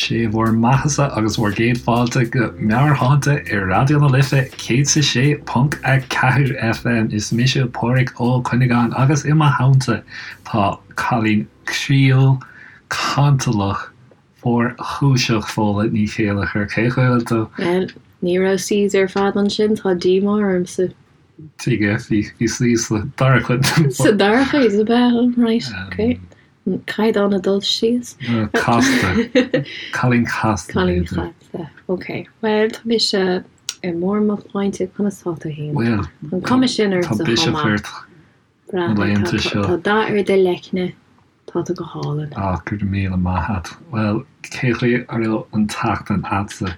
Sé bhur mbeathasa agus bhur gcéad fáilte go Meabhairshláinte ar Raidió na Life 106.4 FM. Is mise Pádraig Ó Cuinneagáin agus i mo theannta tá cailín croíúil, cantalach, fuarchúiseach Fódhla Ní Chéilleachair. Cén chaoi a bhfuil tú? Bhuel, ní raibh C's ar fad ansin, tá díomá ormsa. Tuige, bhí C sa dara cuid. Sa dara cuid, ab ea? Right, ok. An caighdeán ag dul síos. Casta. Cailín casta. Cailín casta. Ok. Bhuel, tá mise i mbarr mo shláinte, conas tá tú féin? Bhuel, An cuma sin ort tá biseach ort na laethanta seo. Tá dath ar do leicne, tá tú go hálainn. Ah, go raibh míle maith a't. Bhuel, cé chaoi a raibh an tseachtain a'dsa?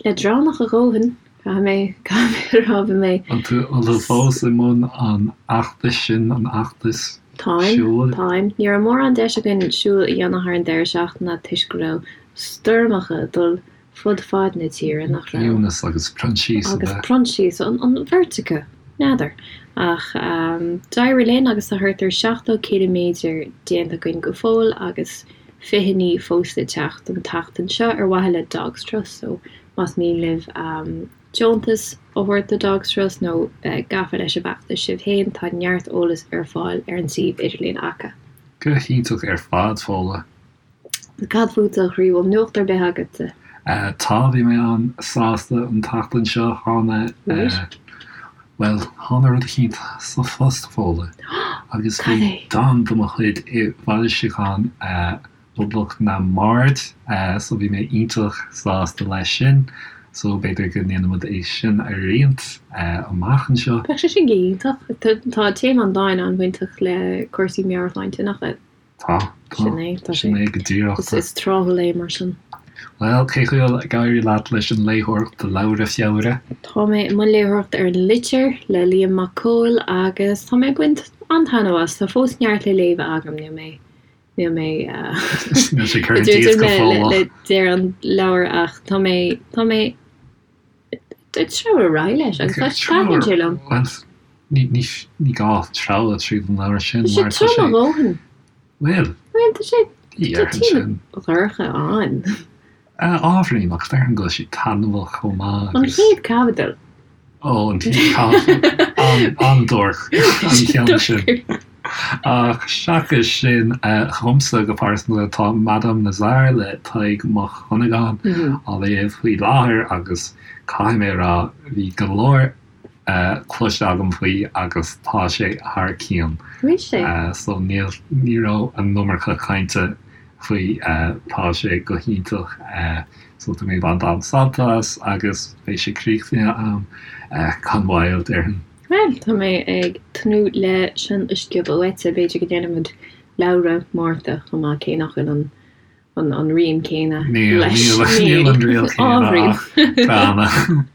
Leadránach a dhóthain, caithfidh mé, caithfidh mé a rá, bhí mé. An tú, an tú fós i mbun an fheachtais sin, an fheachtais Táim, siúil? táim. Ní raibh mórán deis againn siúl a dhéanamh thar an deireadh seachtaine toisc go raibh stoirmeacha ag dul fud fad na tíre, nach raibh? Eunice agus Proinsias, ab Agus ea? Proinsias, an, an bheirt acu, n'fheadar. Ach d'éirigh linn agus tá thart ar 70 ciliméadar déanta againn go fóill agus fichidí fós le teacht an tseachtain seo ar mhaithe le Dogs Trust so más mian libh deontas a thabhairt do Dogs Trust nó bheith gafa leis an bhfeachtas sibh féin tá neart eolas ar fáil ar an suíomh idirlín acu. Go hiontach ar fad, Fódhla. Cad fútsa, a chroí, bhfuil nuacht ar bith agatsa? Tá, bhí mé an-sásta an tseachtain seo, tháinig, bhuel, tháinig rud eicínt sa phost, Fódhla, agus bhí dán de mo chuid i bhfoilseachán Phoblacht na mBard, so bhí mé iontach sásta leis sin, so b'fhéidir go ndéanfaimid é sin a roinnt amach anseo. Bheadh sé sin go hiontach. Tá téama an dáin an-bhainteach le cúrsaí meabhairshláinte, nach ea? Tá, tá. Sin é, tá sé. Sin é go díreach. Is tráthúil é mar sin. Bhuel, cé chaoi a bhfuil ag éirí leat leis an léitheoireacht do Leabhra Feabhra? Tá mé i mbun léitheoireachta ar An Litir le Liam Mac Cóil agus tá mé ag baint an-taitneamh as. Tá fós neart le léamh agam, níl mé, níl mé Níl sé curtha díot go fóill. le deireadh an leabhair ach tá mé, tá mé ag treabhadh ar aghaidh leis agus tá taitníonn sé liom. Bhuel, ní, ní, ní gá treabhadh tríd an leabhar sin mar tá sé. Tá sé trom a dhóthain. Bhuel, Bhuel, tá sé, tá téama dhorcha ann. Ábhairín, ach déarfainn go bhfuil sé taitneamhach chomh maith An agus. chéad caibidil. Ó, an chéad caibidil. An-duairc an ceann sin. Ach seachas sin, dhomsa go pearsanta, tá Madame Nazar le Tadhg Mac Dhonnagáin á léamh faoi láthair agus caithfidh mé a rá, bhí go leor cloiste agam faoi agus tá sé thar cionn. Bhí sé. So níl, ní raibh an iomarca cainte faoi, tá sé go hiontach. So tá mé ag baint an-sult as agus beidh sé críochnaithe a'm gan mhoill, déarfainn. Bhuel, tá mé ag tnúth le sin a sciobadh uaitse. B'fhéidir go ndéanfaimid leabhra Márta chomh maith, cé nach bhfuil an an an rím céanna Níl, leis. níl, níl an riail céanna Ábhairín. ach beanna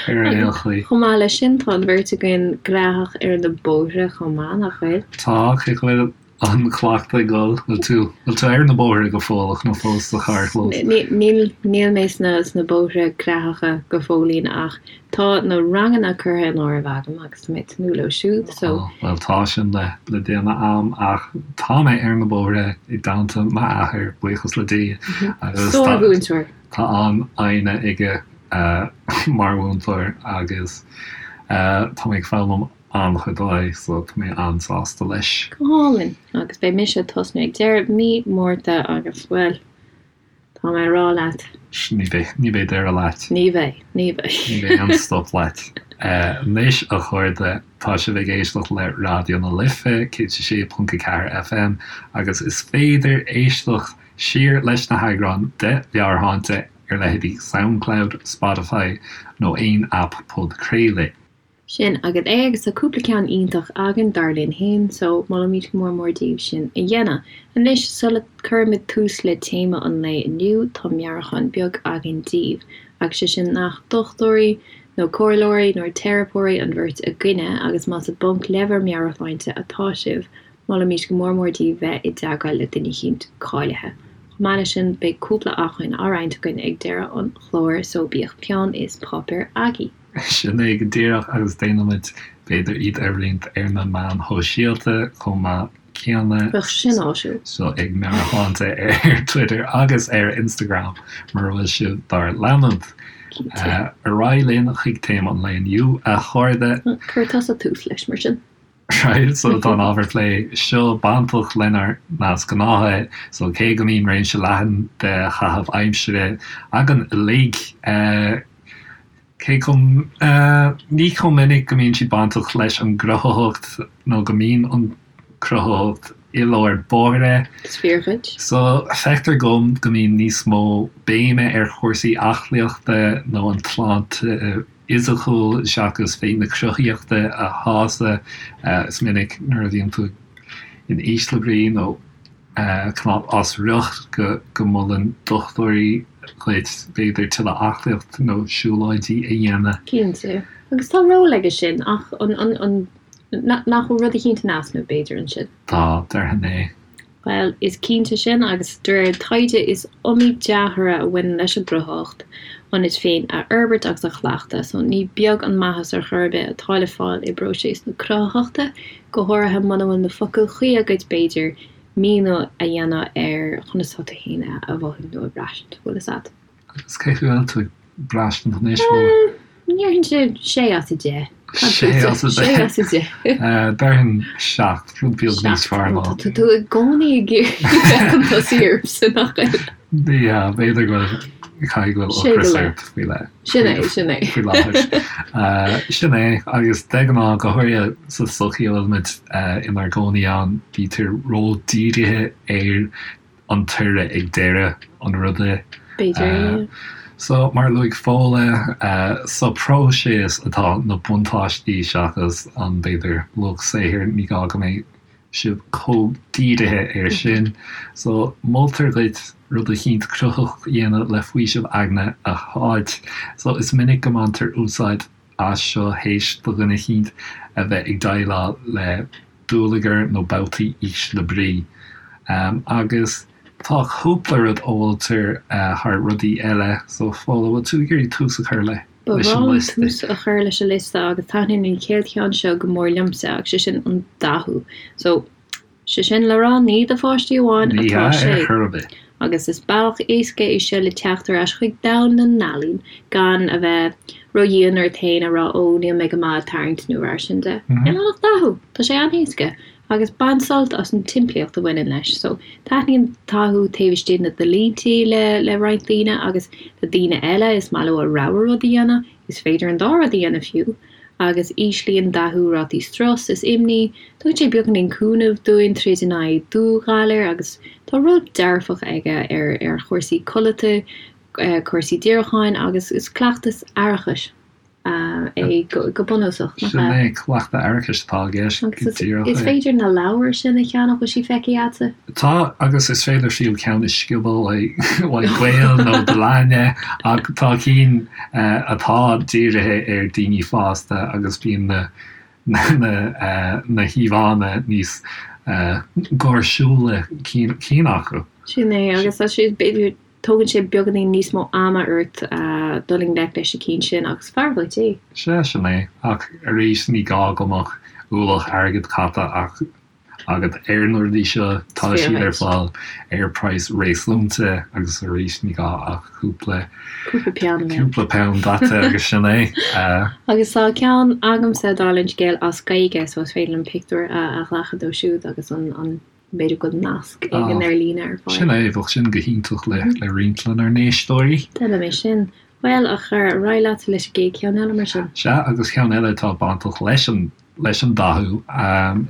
ar aon chaoi. Chomh maith leis sin, tá an bheirt againn gnóthach ar na bóithre chomh maith, nach bhfuil? Tá, cé go bhfuil an cleachtadh ag dul, bhfuil tú, bhfuil tú ar na bóithre go fóilleach nó fós sa charrchlós? Níl, níl mé sna, sna bóithre gnóthacha go fóillín ach tá na ranganna curtha in áirithe agam agus tá mé ag tnúth leo siúd so. Ó, bhuel tá sin le, le déanamh a'm ach tá mé ar na bóithre i dteannta m'athair, buíochas le Dia, agus tá, Sár-mhúinteoir. tá an-fhoighne aige mar mhúinteoir agus tá mé ag foghlaim an-chuid uaidh so tá mé an-sásta leis. Go hálainn! Agus beidh mise ag tosnú ag deireadh mí Márta agus, bhuel, tá mé ag rá leat. Ní bheidh, ní bheidh deireadh leat. Ní bheidh, ní bheidh. Ní bheidh aon stop leat. Anois, a chairde, tá sibh ag éisteacht le Raidió na Life, 106.4 FM, agus is féidir éisteacht siar leis na heagráin de Mheabhairshláinte ar leithéidí Soundcloud, Spotify nó aon aip podchraolaidh. Sin agat é agus tá cúpla ceann iontach againn, dar linn féin, so molaimid go mór mór daoibh sin a dhéanamh. Anois, sula gcuirimid tús le téama an lae inniu, tá meabhrúchán beag againn daoibh, agus sé sin nach dochtúirí, nó comhairleoirí, nó teiripeoirí an bheirt againne, agus más i bponc le bhur meabhairshláinte atá sibh, molaimid go mór mór daoibh bheith i dteagmháil le duine eicínt cáilithe. Chomh maith leis sin, beidh cúpla acmhainn á roinnt againn ag deireadh an chláir, so bíodh peann is páipéar agaibh. Sin é go díreach agus déanfaimid, b'fhéidir, iad a roinnt ar na meáin shóisialta chomh maith. céanna. Bheadh sin áisiúil. So ag Meabhairshláinte ar Twitter agus ar Instagram mura bhfuil sibh dár leanúint. Ar aghaidh linn chuig téama an lae inniu, a chairde. Cuir tusa tús leis, mar sin. Right, so tá an ábhar plé seo bainteach lenár ndeasghnátha, so cé go mbíonn réimse leathan de chaitheamh aimsire againn uilig, cé chomh, ní chomh minic go mbíonn siad bainteach leis an gcruthaitheacht nó go mbíonn an chruthaitheacht i lár báire. Is fíor dhuit. So feictear dom go mbíonn níos mó béime ar chúrsaí aclaíochta nó an tsláinte fhisiciúil seachas féith na cruthaíochta a shásamh. Is minic nuair a bhíonn tú in ísle brí nó cineál as riocht go molann dochtúirí dhuit b'fhéidir tuilleadh aclaíocht nó siúlóidí a dhéanamh. Cinnte. Agus tá ról aige sin ach an nach bhfuil rud eicínt in easnamh b'fhéidir ansin? Tá, déarfainn é. Bhuel, is cinnte sin, agus de réir taighde is iomaí dea-thoradh a bhaineann leis an gcruthaitheacht, ionat féin a fhorbairt agus a chleachtadh, so ní beag an maitheas ar chor ar bith atá le fáil i bpróiseas na cruthaitheachta, go háirithe muna bhfuil na focail chuí agat, b'fhéidir, míniú a dhéanamh ar chonas atá tú féin a mhothú nó a bhraistint, bhfuil fhios a'd. Agus cé chaoi bhfuil tú ag braistint anois, bhfuil? Déarfainnse sé as 10. Sé as 10? Sé as 10. Déarfainn 7, rud beag níos fearr ná. Tá tú i gcónaí ag iarraidh bheith chun tosaigh ormsa, nach bhfuil? Yeah, b'fhéidir go bhfuil, caithfidh go bhfuil ocras ort faoi leith. Sin é, sin é. Faoi láthair. Sin é, agus de ghnáth, go háirithe sa tsochaí a bhfuilimid inár gcónaí ann, bítear ró-dhírithe ar an toradh ag deireadh an ruda. B'fhéidir. So, mar a luaigh Fódhla, sa próiseas atá na buntáistí seachas an, b'fhéidir, luach saothair, ní gá go mbeidh sibh chomh dírithe air sin. So, moltar duit rud eicínt cruthaitheach a dhéanamh le faoiseamh aigne a fháilt. So, is minic go mbaintear úsáid as seo théis do dhuine eicínt a bheith ag déileáil le dúlagar nó babhtaí ísle brí. Agus tá cúpla rud a mholtar thar rudaí eile, so Fódhla, bhfuil tú ag iarraidh tús a chur leis an liosta? Ba bhreá liom tús a chur leis an liosta agus taitníonn an chéad cheann seo go mór liomsa agus sé sin an dathú. So, sé sin le rá ní do pháistí amháin atá sé. Ní hea ar chor ar bith. Agus is bealach éasca é seo le teacht ar ais chuig domhan na n-ealaíon gan a bheith ró-dhian ort féin a rá 'ó níl mé go maith ag tarraingt' nó mar sin de. Níl ann ach dathú! Tá sé an-éasca agus bain sult as an tsimplíocht a bhaineann leis. So, taitníonn dathú taobh istigh de na línte le le roinnt daoine agus le daoine eile is maith leo a rogha rud a dhéanamh, is féidir an dá rud a dhéanamh fiú! agus íslíonn dathú rátaí strus is imní, tugann sé beagáinín cúnaimh dúinn troid in aghaidh dúghalair agus tá ról dearfach aige ar ar chúrsaí codlata, cúrsaí díriúcháin agus is cleachtas aireachais é go bunúsach, nach Sin ea? é, cleachtadh aireachais atá i gceist, go Agus díreach is é. féidir na leabhair sin a cheannach, bhfuil siad feicthe agatsa? Tá, agus is féidir fiú ceann a sciobadh uaidh gaol nó do leathne, ach tá cinn atá dírithe ar daoine fásta agus bíonn na na híomhánna níos gáirsiúla cinn acu. Sin é, agus tá sé, b'fhéidir, tógann sé beagáinín níos mó ama ort dul i ngleic leis na cinn sin ach is fearr dhuit é. Sea, sin é, ach arís ní gá go mbeadh ualach airgid caite ach agat ar na rudaí seo, tá siad ar fáil ar praghas réasúnta agus arís ní gá ach cúpla cúpla peann daite agus sin é. Agus tá ceann agamsa dála an scéil as Gaeilge so is féidir liom pictiúr a ghlacadh dó siúd agus an b'fhéidir go bhfuil nasc éigin ar líne ar fáil. Sin é, bheadh sin go hiontach le roinnt lenár n-éisteoirí. Déanfaidh mé sin. Bhuel, a chara, ar aghaidh leat leis an gcéad cheann eile mar sin. Sea, agus ceann eile atá bainteach leis an leis an dathú,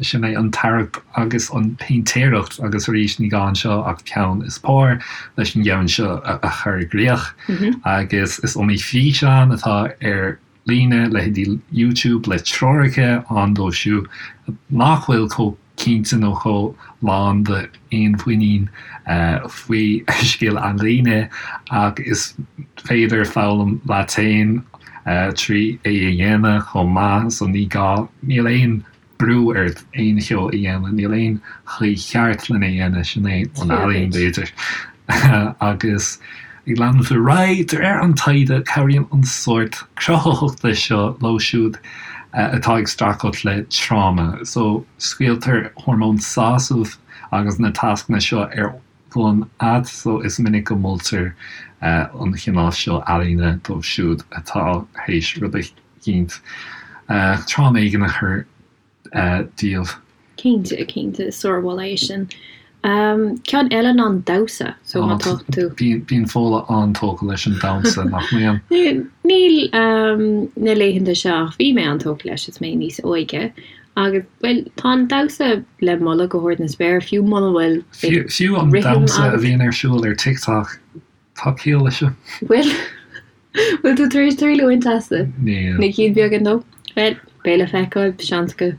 sin é an tarraingt agus an péintéireacht agus arís ní gá anseo ach peann is pár leis an gceann seo a chur i gcrích agus is iomaí físeán atá ar líne, leithéidí YouTube le treoracha ann dóibh siúd nach bhfuil chomh cinnte nó chomh lán d'fhéinmhuinín faoi scil ealaíne ach is féidir foghlaim leat féin trí é a dhéanamh chomh maith so ní gá, níl aon brú ort aon cheo a dhéanamh, níl aon chaoi cheart lena dhéanamh, sin é an ealaín b'fhéidir. Agus ag leanúint ar aghaidh, de réir an taighde, cabhraíonn an sórt cruthaitheachta seo leo siúd. atá ag streachailt le tráma. So, scaoiltear hormón sásaimh agus na tascanna seo ar bun agat, so is minic go moltar an chineál seo ealaíne dóibh siúd atá théis rud eicínt, tráma éigin a chur díobh. Cinnte, cinnte, is sármholadh é sin. Ceann eile ná an damhsa, so má tá tú. Bíonn Fódhla an-tógtha leis an damhsa, nach mbíonn? Níl na laethanta seo ach bhí mé an-tógtha leis is mé níos óige agus, bhuel, tá an damhsa le moladh go hard na spéire, fiú muna bhfuil Fiú an damhsa a bhíonn ar siúl ar TikTok, tá ciall leis. Bhfuil? Bhfuil tú tar éis triail a bhaint as? Níl. Na cinn bheaga nó? Bhuel, beidh le feiceáil, seans go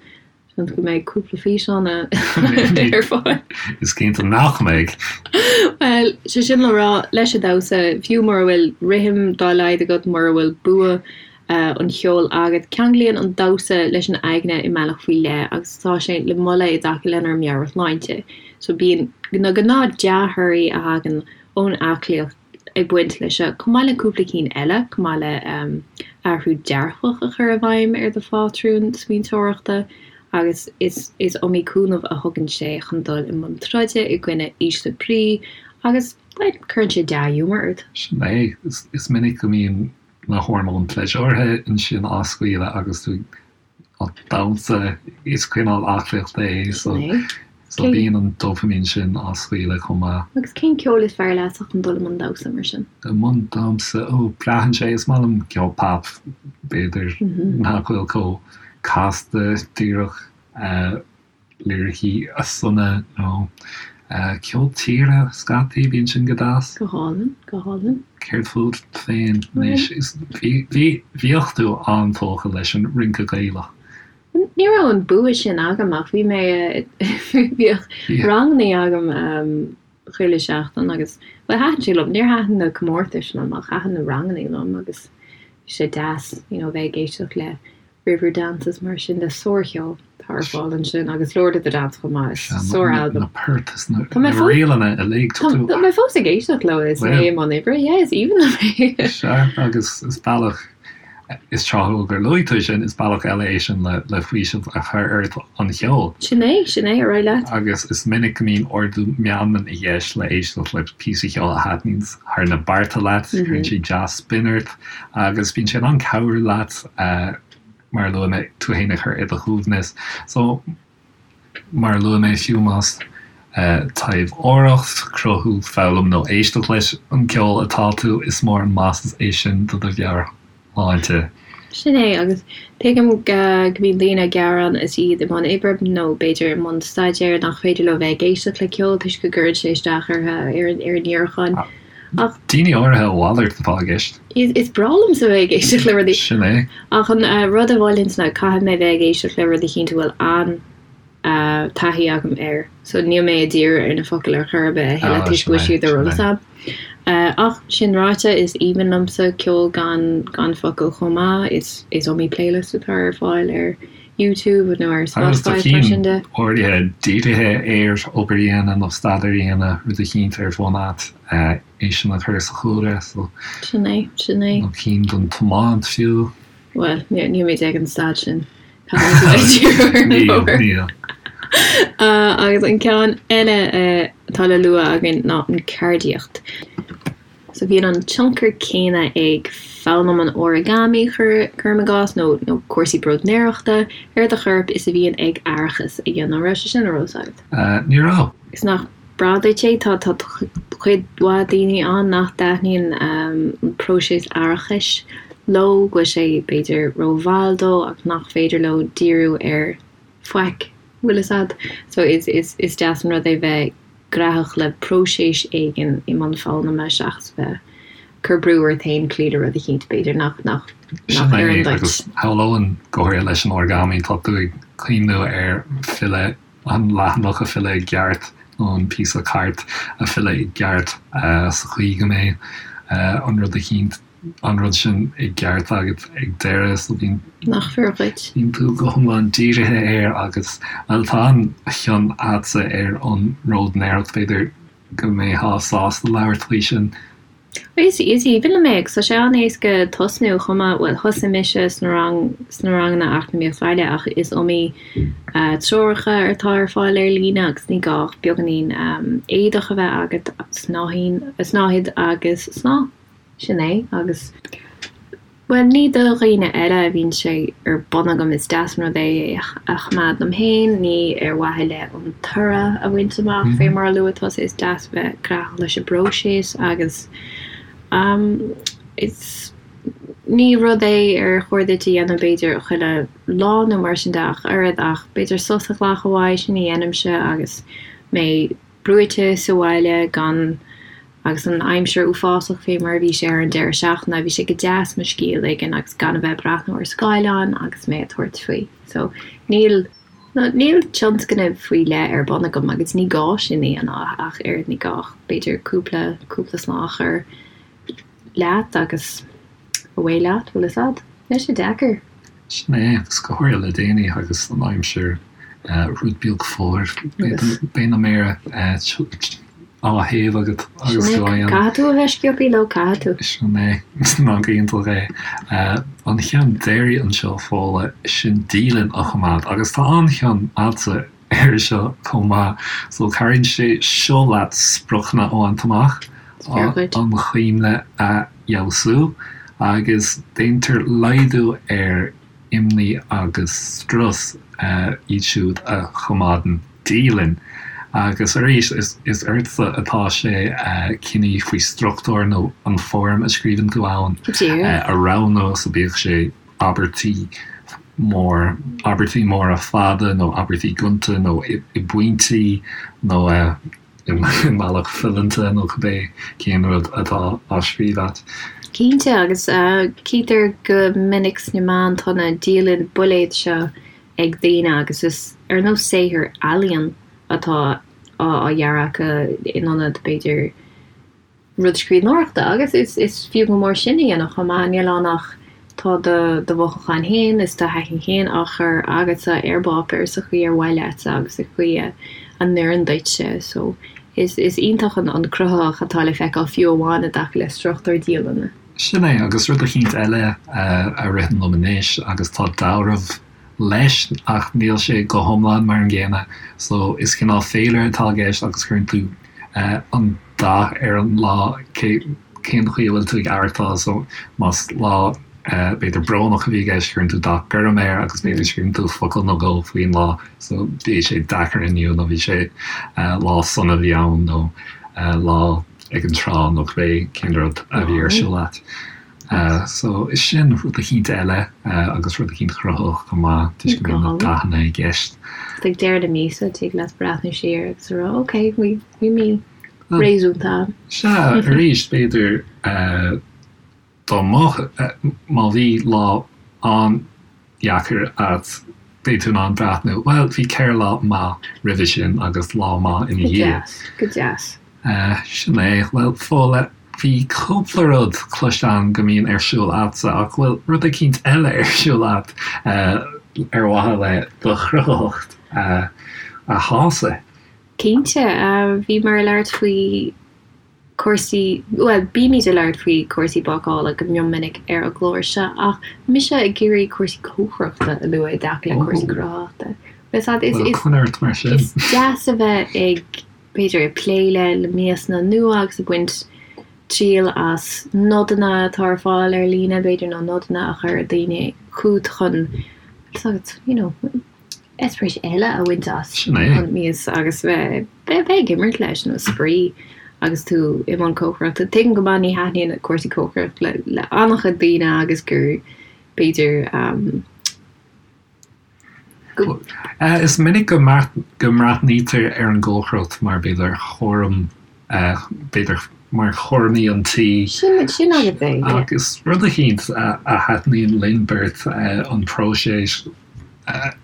seans go mbeidh cúpla físeán ar fáil. Is cinnte nach mbeidh. Bhuel, sé sin le rá, leis an damhsa, fiú mura bhfuil rithim dá laghad agat, mura bhfuil bua an cheoil agat, ceanglaíonn an damhsa leis an aigne i mbealach faoi leith agus tá sé le moladh i dtaca lenár meabhairshláinte. So bíonn na gnáth dea-thorthaí a thagann ón aclaíocht ag baint leis seo, chomh maith le cúpla cinn eile, chomh maith le athrú dearfach a chur i bhfeidhm ar do phátrún smaointeoireachta agus is is iomaí cúnamh a thugann sé chun dul i mbun troide i gcoinne ísle brí agus, bhuel, cuireann sé dea-ghiúmar ort. Sin é. Is minic go mbíonn na hormóin pléisiúrtha ansin á scaoileadh agus tú ag damhsa, is cineál aclaíochta é so so bíonn an dopamine sin á scaoileadh chomh maith. Agus cén ceol is fearr leatsa chun dul i mbun damhsa mar sin? I mbun damhsa? Ó, braitheann sé, is maith liom ceol pop, b'fhéidir, nach bhfuil chomh casta díreach. Liricí sona nó ceol tíre scaití, bíonn sin go deas. Go hálainn, go hálainn. Céard fút féin anois? Bhí, bhíodh tú an-tógtha leis an rince Gaelach. Ní raibh an bua sin agam ach bhí mé, bhíodh rangannaí agam chuile seachtain agus, bhuel thaitin sé liom, níor thaitin na comórtais liom ach thaitin na rangannaí liom agus bhí sé deas, you know, bheith ag éisteacht le Riverdance is mar sin de sárcheol atá ar fáil ansin agus Lord of the Dance chomh maith, is sár-albam. Na poirt is na ríleanna uilig. Tá mé fós ag éisteacht leo is mé i mbun oibre, yeah, is aoibhinn liom é. Sea, agus is bealach, is tráthúil gur luaigh tú sin, is bealach eile é sin le faoiseamh a chur ort an cheol. Sin é, sin é, ar aghaidh leat. Agus is minic go mbíonn ardú meanman i gceist le éisteacht le píosa ceoil a thaitníonn thar na bearta leat, cuireann sé dea-spion ort. Agus bíonn sé in ann cabhrú leat, mar a luaigh mé, tú fhéin a chur i do shuaimhneas. So, mar a luaigh mé, fiú más taibheoireacht, cruthú, foghlaim nó éisteacht leis an gceol atá tú, is mór an maitheas é sin do do mheabhairshláinte. Sin é, agus tuigim go mbíonn daoine ag gearán is iad i mbun oibre nó b'fhéidir i mbun staidéir nach féidir leo bheith ag éisteacht le ceol toisc go gcuireann sé isteach orthu, ar a ndíriúchán. Ach. Daoine áirithe a mhalairt atá i gceist. Is breá liomsa bheith ag éisteacht le rudaí. Sin é. Ach an rud a mholfainnse ná caithfidh mé bheith ag éisteacht le rud eicínt a bhfuil an-taithí agam air. So níl mé ag díriú ar na focail ar chor ar bith a thuilleadh toisc go bhfuil siad ar eolas agam. Ach sin ráite, is aoibhinn liomsa ceol gan gan focail chomh maith. Is is iomaí playlist atá ar fáil ar YouTube nó ar Spotify is mar sin de. Áirithe dírithe ar obair a dhéanamh nó staidéar a dhéanamh, rud eicínt ar bun agat, é sin a chur sa chúlra. So. Sin é, sin é. Nó cinn don tiomáint fiú. Bhuel, níl mé ag an staid sin. Níl, níl. Agus an ceann eile atá le lua againn ná an ceardaíocht. So bíonn an tionchar céanna ag foghlaim an origami, cuirim i gcás, nó nó cúrsaí bróidnéireachta ar do chorp is a bhíonn ag aireachas a dhéanamh. An raibh sé sin ar eolas agat? Ní raibh. Is nach breá duit é? Tá tá cuid mhaith daoine ann nach dtaitníonn an próiseas aireachais leo, go bhfuil sé b'fhéidir rómhall dóibh ach nach féidir leo díriú ar faic, bhfuil fhios a'd. So is is is deas an rud é bheith graitheach le próiseas éigin i mbun foghlama seachas bheith cur brú ort féin cloí le rud eicínt b'fhéidir nach nach nach Sin é, oireann duit. agus shamhlóinn go háirithe leis an origami, tá tú ag cuimhniú ar filleadh, an leathanach a filleadh i gceart nó an píosa cairt a filleadh i gceart sa chaoi go mbeidh an rud eicínt an rud sin i gceart agat ag deireadh so bíonn Nach fíor dhuit. bíonn tú go hiomlán dírithe air agus, bhuel, tá an-chion a'dsa ar an mbróidnéireacht, b'fhéidir go mbeifeá sásta labhairt faoi sin. Is aoibhinn liom é agus tá sé an-éasca tosnú chomh maith, bhuel thosaigh mise sna rang, sna ranganna Eacnamaíocht Bhaile ach is iomaí treoracha atá ar fáil ar líne agus ní gá ach beagáinín éadach a bheith agat, snáithín, snáthaid agus snáth. Sin é agus. Bhuel, ní do dhaoine eile a bhíonn sé ar bun agam, is deas an rud é é a choimeád dom féin, ní ar mhaithe le an toradh a bhaint amach, fé mar a luaigh tusa, is deas bheith gnaitheach leis an bpróiseas agus is ní rud é ar chóir duit a dhéanamh b'fhéidir chuile lá nó mar sin de ach oiread ach b'fhéidir sos a ghlacadh uaidh, sin a dhéanaimse agus mé brúite sa bhaile gan agus an aimsir uafásach fé mar a bhí sé ar an deireadh seachtaine, bhí sé go deas mo scíth a ligean agus gan a bheith ag breathnú ar scáileán agus mé ag tabhairt faoi. So, níl, níl tionscnamh faoi leith ar bun agam agus ní gá sin a dhéanamh ach oiread, ní gá ach b'fhéidir cúpla, cúpla snáth a chur leat agus away leat, bhfuil fhios a'd? Níl sé deacair. Sin é, agus go háirithe le déanaí agus an aimsir rud beag fuar, beidh na méara á théamh agat agus tú á dhéanamh. Caithfidh tú a bheith sciobtha leo, caithfidh tú. Sin é, ná go iontach é. An cheann deiridh anseo, Fódhla, sin dialann a choimeád agus tá an-chion a'dsa air seo chomh maith. So cabhraíonn sé seo leat spriocanna a bhaint amach, an chuimhne a fheabhsú agus déantar laghdú ar imní agus strus iad siúd a choimeádann dialann. Agus arís, is ortsa atá sé cinneadh faoi struchtúr nó an foirm a scríobhann tú ann a roghnú, so bíodh sé abairtí mór, abairtí móra fada nó abairtí gonta nó i bpointí nó i mbealach fileanta nó cibé cén rud atá á scríobh agat. Cinnte, agus cítear go minic sna meáin tá na dialann builéad seo ag daoine agus is ar nós saothar ealaíon atá á dhearadh acu in ionad, b'fhéidir, rud scríbhneoireachta agus is is fiú go mór sin a dhéanamh chomh maith. Níl ann ach tá do do mhothúcháin féin is do thaithí féin á chur agatsa ar bpáipéar sa chaoi ar mhaith leatsa agus sa chaoi a a n-oireann duitse. So is is iontach an an cruthaitheacht atá le feiceáil fiú amháin i dtaca le struchtúr dialainne. Sin é, agus rud eicínt eile a ritheann liom anois agus tá dealramh leis ach níl sé go hiomlán mar an gcéanna. So is cineál féilire atá i gceist agus cuireann tú an dath ar an lá, cén chaoi a bhfuil tú ag aireachtáil. So más lá b'fhéidir brónach a bhí i gceist cuireann tú dath gorm air agus b'fhéidir scríobhann tú focal nó dhó faoin lá. So bhí sé deacair inniu nó bhí sé lá sona a bhí ann nó lá ag an trá nó cibé cén rud a bhí ar siúl agat. So is sin rud eicínt eile agus rud eicínt cruthaitheach chomh maith toisc go mbíonn na dathanna i gceist. Ag deireadh na míosa tig leat breathnú siar agus a rá ok bhí bhí mí réasúnta ann. Sea, arís b'fhéidir dá mbeadh, má bhí lá an-deacair agat beidh tú in ann breathnú, bhuel bhí 4 lá maith roimhe sin agus lá maith ina dhiaidh. Go deas, go deas. Sin é. Bhuel, Fódhla, bhí cúpla rud cloiste agam go mbíonn ar siúl a'dsa ach bhfuil rud eicínt eile ar siúl a'd ar mhaithe le do chruthaitheacht a shásamh? Cinnte. Bhíomar ag labhairt faoi cúrsaí, bhuel, bímid ag labhairt faoi cúrsaí bácála go mion minic ar an gclár seo ach mise ag iarraidh cúrsaí cócaireachta a lua i dtaca le cúrsaí cruthaitheachta. Bhuel, coinnigh ort mar sin. Is deas a bheith ag b'fhéidir ag plé le le miasanna nua agus ag baint triail as nodanna atá ar fáil ar líne, b'fhéidir, nó nodanna a chuir daoine chugat chun, you know, eispéireas eile a bhaint as an mias agus bheith bheith ag imirt leis nó spraoi agus tú i mbun cócaireachta. Tuigim go maith ní thaitníonn cúrsaí cócaireachta le le an-chuid daoine agus gur b'fhéidir um, Is minic go mbreathnaítear ar an gcócaireacht mar b'fhéidir chúram, b'fhéidir mar chúraimí an tí. Sin agat é, yeah. Agus rud eicínt a thaitníonn linn beirt, an próiseas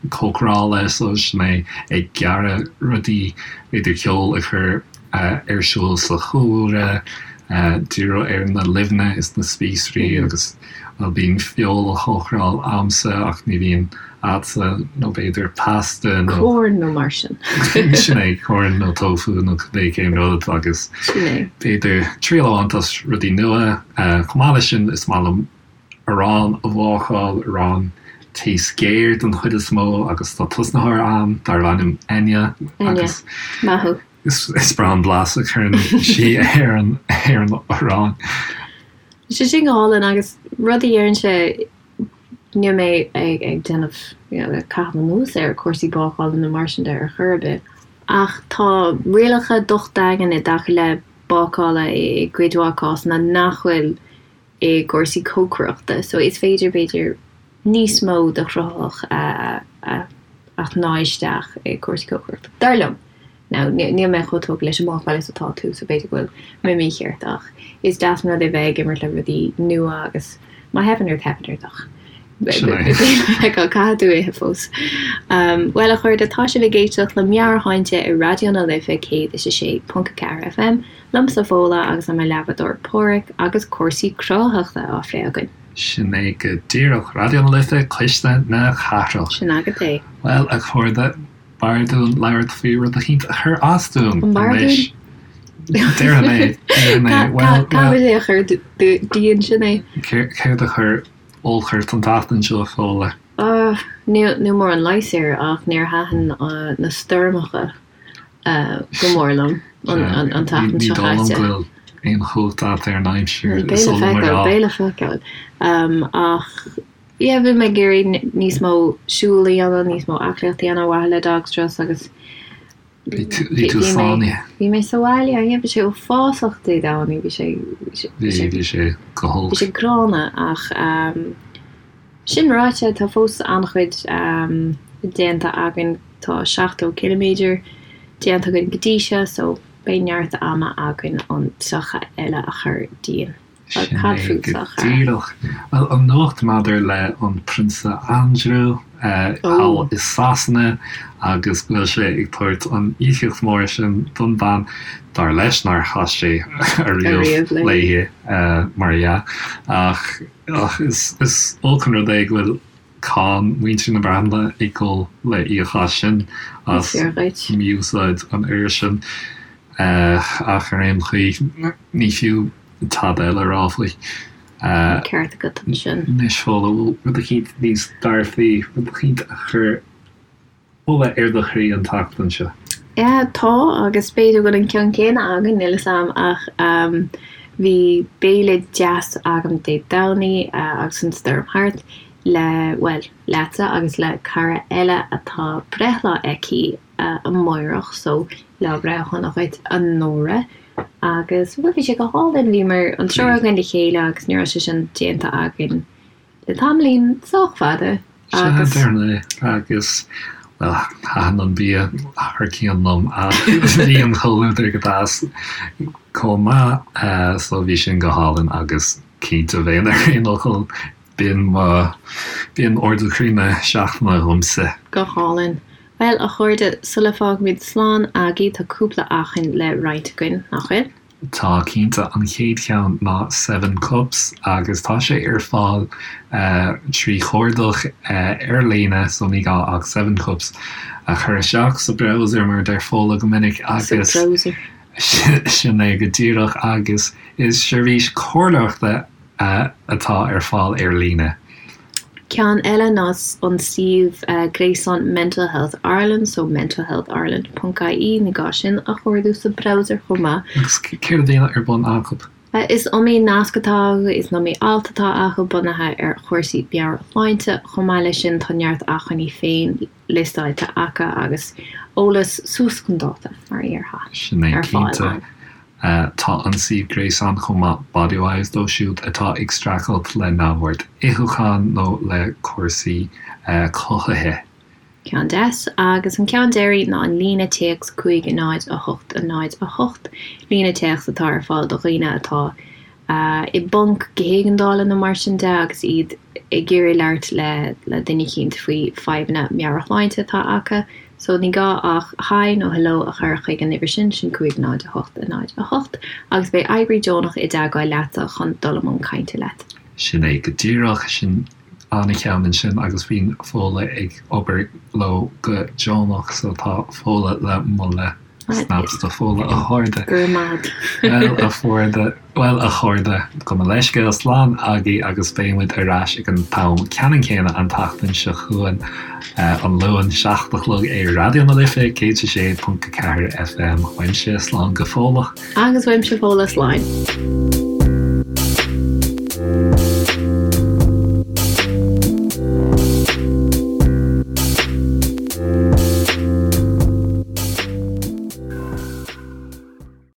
cócarála, so sin é ag gearradh rudaí, b'fhéidir ceol a chur ar siúl sa chúlra. Díriú ar na luibheanna is na spíosraí agus, bhuel, bíonn feoil á chócaráil a'msa ach ní bhíonn a'dsa, nó b'fhéidir pasta nó. Corn nó mar sin. Sin é, corn nó tofu nó cibé cén rud agus. Sin é. B'fhéidir triail a bhaint as rudaí nua. Chomh maith leis sin, is maith liom arán a bhácáil, arán taos géar den chuid is mó agus tá tosnaitheoir a'm darb ainm Enya agus. Enya, maith thú. Is breá an blas a chuireann sí ar an arán. Tá sé sin go hálainn agus rud a deirimse, níl mé ag déanamh, you know, ag caitheamh anuas ar chúrsaí bácála nó mar sin de ar chor ar bith, ach tá rialacha docht daingean i dtaca le bácála i gcuid mhaith cásanna nach bhfuil i gcúrsaí cócaireachta so is féidir b'fhéidir níos mó de chruthaitheacht a a shnáith isteach i gcúrsaí cócaireachta. Dar liom. Now níl mé chomh tógtha leis an mbácáil is atá tú so b'fhéidir go bhfuil mé mícheart ach is deas an rud é bheith ag imirt le rudaí nua agus má theipeann ort teipeann ort ach caithfidh tú ithe fós. Bhuel a chairde tá sibh ag éisteacht le Meabhairshláinte ar Raidió na Life 106.4 FM. Liomsa Fódhla agus le mo leathbhádóir Páraic agus cúrsaí cruthaitheachta á phlé againn. Sin é go díreach. Raidió na Life, Cuisle na Cathrach. Sin agat é. Bhuel, a chairde, b'fhearr dúinn labhairt faoi rud eicínt a chuir as dúinn An b'fhearr anois. dúinn? Déarfaidh mé, déarfaidh mé, bhuel, Caithfidh é a chur dínn, sin é. Céard a chuir olc ort an tseachtain seo, a Fódhla? Níl mórán leighis air ach níor thaitin na stoirmeacha. go mór liom an tseachtain seo caite. Ní dóigh liom go bhfuil aon chumhacht agat ar an aimsir. Beidh le feiceáil, beidh le feiceáil. Ach yeah, bhí mé ag iarraidh níos mó siúl a dhéanamh, níos mó aclaíocht a dhéanamh ar mhaithe le dog strus agus Bhí tú sáinnithe. Bhí mé sa bhaile, yeah, bhí sé uafásach Dé Domhnaigh, bhí sé Bhí sé go holc. Bhí sé gránna ach Sin ráite, tá fós an-chuid déanta againn, tá 70 ciliméadar déanta againn go dtí seo, so beidh neart ama againn an 30 eile a chur dínn. Sin é go díreach. Bhuel, an nuacht maidir le an Prionsa Andrew thall i Sasana agus go bhfuil sé ag tabhairt an íocaíocht mhór sin don bhean, dar leis nár chas sé ariamh léi, mar dhea, ach Ach is olc an rud é go bhfuil cáin mhuintir na Breataine ag dul le íoc as sin, as mí-úsáid an fhir sin. Ach ar aon chaoi, ní fiú tada eile a rá faoi. Ceart agat ansin. Anois, Fódhla, bhfuil rud eicínt níos dearfaí, rud eicínt a chuir Ola ar do chroí an tseachtain seo? Yeah, tá, agus b'fhéidir go bhfuil an ceann céanna againn, níl 'fhios a'm, ach bhí béile deas agam Dé Domhnaigh agus an stoirm thart, le, bhuel, leatsa agus le cara eile atá breithlá aici amáireach, so lá breithe shona dhuit, a Nóra. Agus, bhuel, bhí sé go hálainn, bhíomar an triúr againn le chéile agus ní raibh sé sin déanta againn le tamaillín sách fada agus. Sea, déarfainn é. Agus, bhuel, thaitin an bia thar cionn liom ach bhí an comhluadar go deas chomh maith so bhí sin go hálainn agus cinnte bheinn ar aon fhocal, b'in mo, b'in ardú croí na seachtaine dhomsa. Go hálainn. Bhuel, a chairde, sula bhfágaimid slán agaibh tá cúpla acmhainn le roinnt againn, nach bhfuil? Tá cinnte, an chéad cheann ná Seven Cups agus tá sé ar fáil trí chuardach ar líne so ní gá ach Seven Cups a chur isteach sa browser mar a deir Fódhla go minic agus sin é go díreach agus is seirbhís comhairleoireachta atá ar fáil ar líne. Ceann eile ná an suíomh gréasáin Mental Health Ireland, so mentalhealthireland ponc ie, ní gá sin a chuardú sa browser chomh maith. Agus céard a bhíonn ar bun acu? Is iomaí nasc atá acu, is iomaí alt atá acu bunaithe ar chúrsaí meabhairshláinte. Chomh maith leis sin tá neart acmhainní féin liostáilte acu agus eolas suas chun dáta, mar a déarfá, Sin é, ar fáil cinnte. ann. Tá an suíomh gréasáin chomh maith Bodywhys dóibh siúd atá ag streachailt le neamhord itheacháin nó le cúrsaí cothaithe. Ceann deas. Agus an ceann deiridh ná an líne téacs 5 0 8 0 8, líne téacs atá ar fáil do dhaoine atá i bponc go héigeandála nó mar sin de agus iad ag iarraidh labhairt le le duine eicínt faoi fadhbanna meabhairshláinte atá acu. So ní gá ach Hi nó Hello a chur chuig an uimhir sin, sin 5 0 8 0 8, agus beidh oibrí deonach i dteagmháil leatsa chun dul i mbun cainte leat. Sin é go díreach, sin an-cheann ansin agus bíonn Fódhla ag obair leo go deonach so tá Fódhla le moladh. Snaps do Fódhla a chairde. Go raibh maith agat. Bhuel a chairde, bhuel a chairde, gabh mo leithscéal, slán agaibh agus beidh muid ar ais ag an t-am ceannann céanna an tseachtain seo chugainn, an Luan, 7 a chlog ar Raidió na Life 106.4 FM. Uaimse, slán go fóilleach. Agus uaimse Fódhla, slán.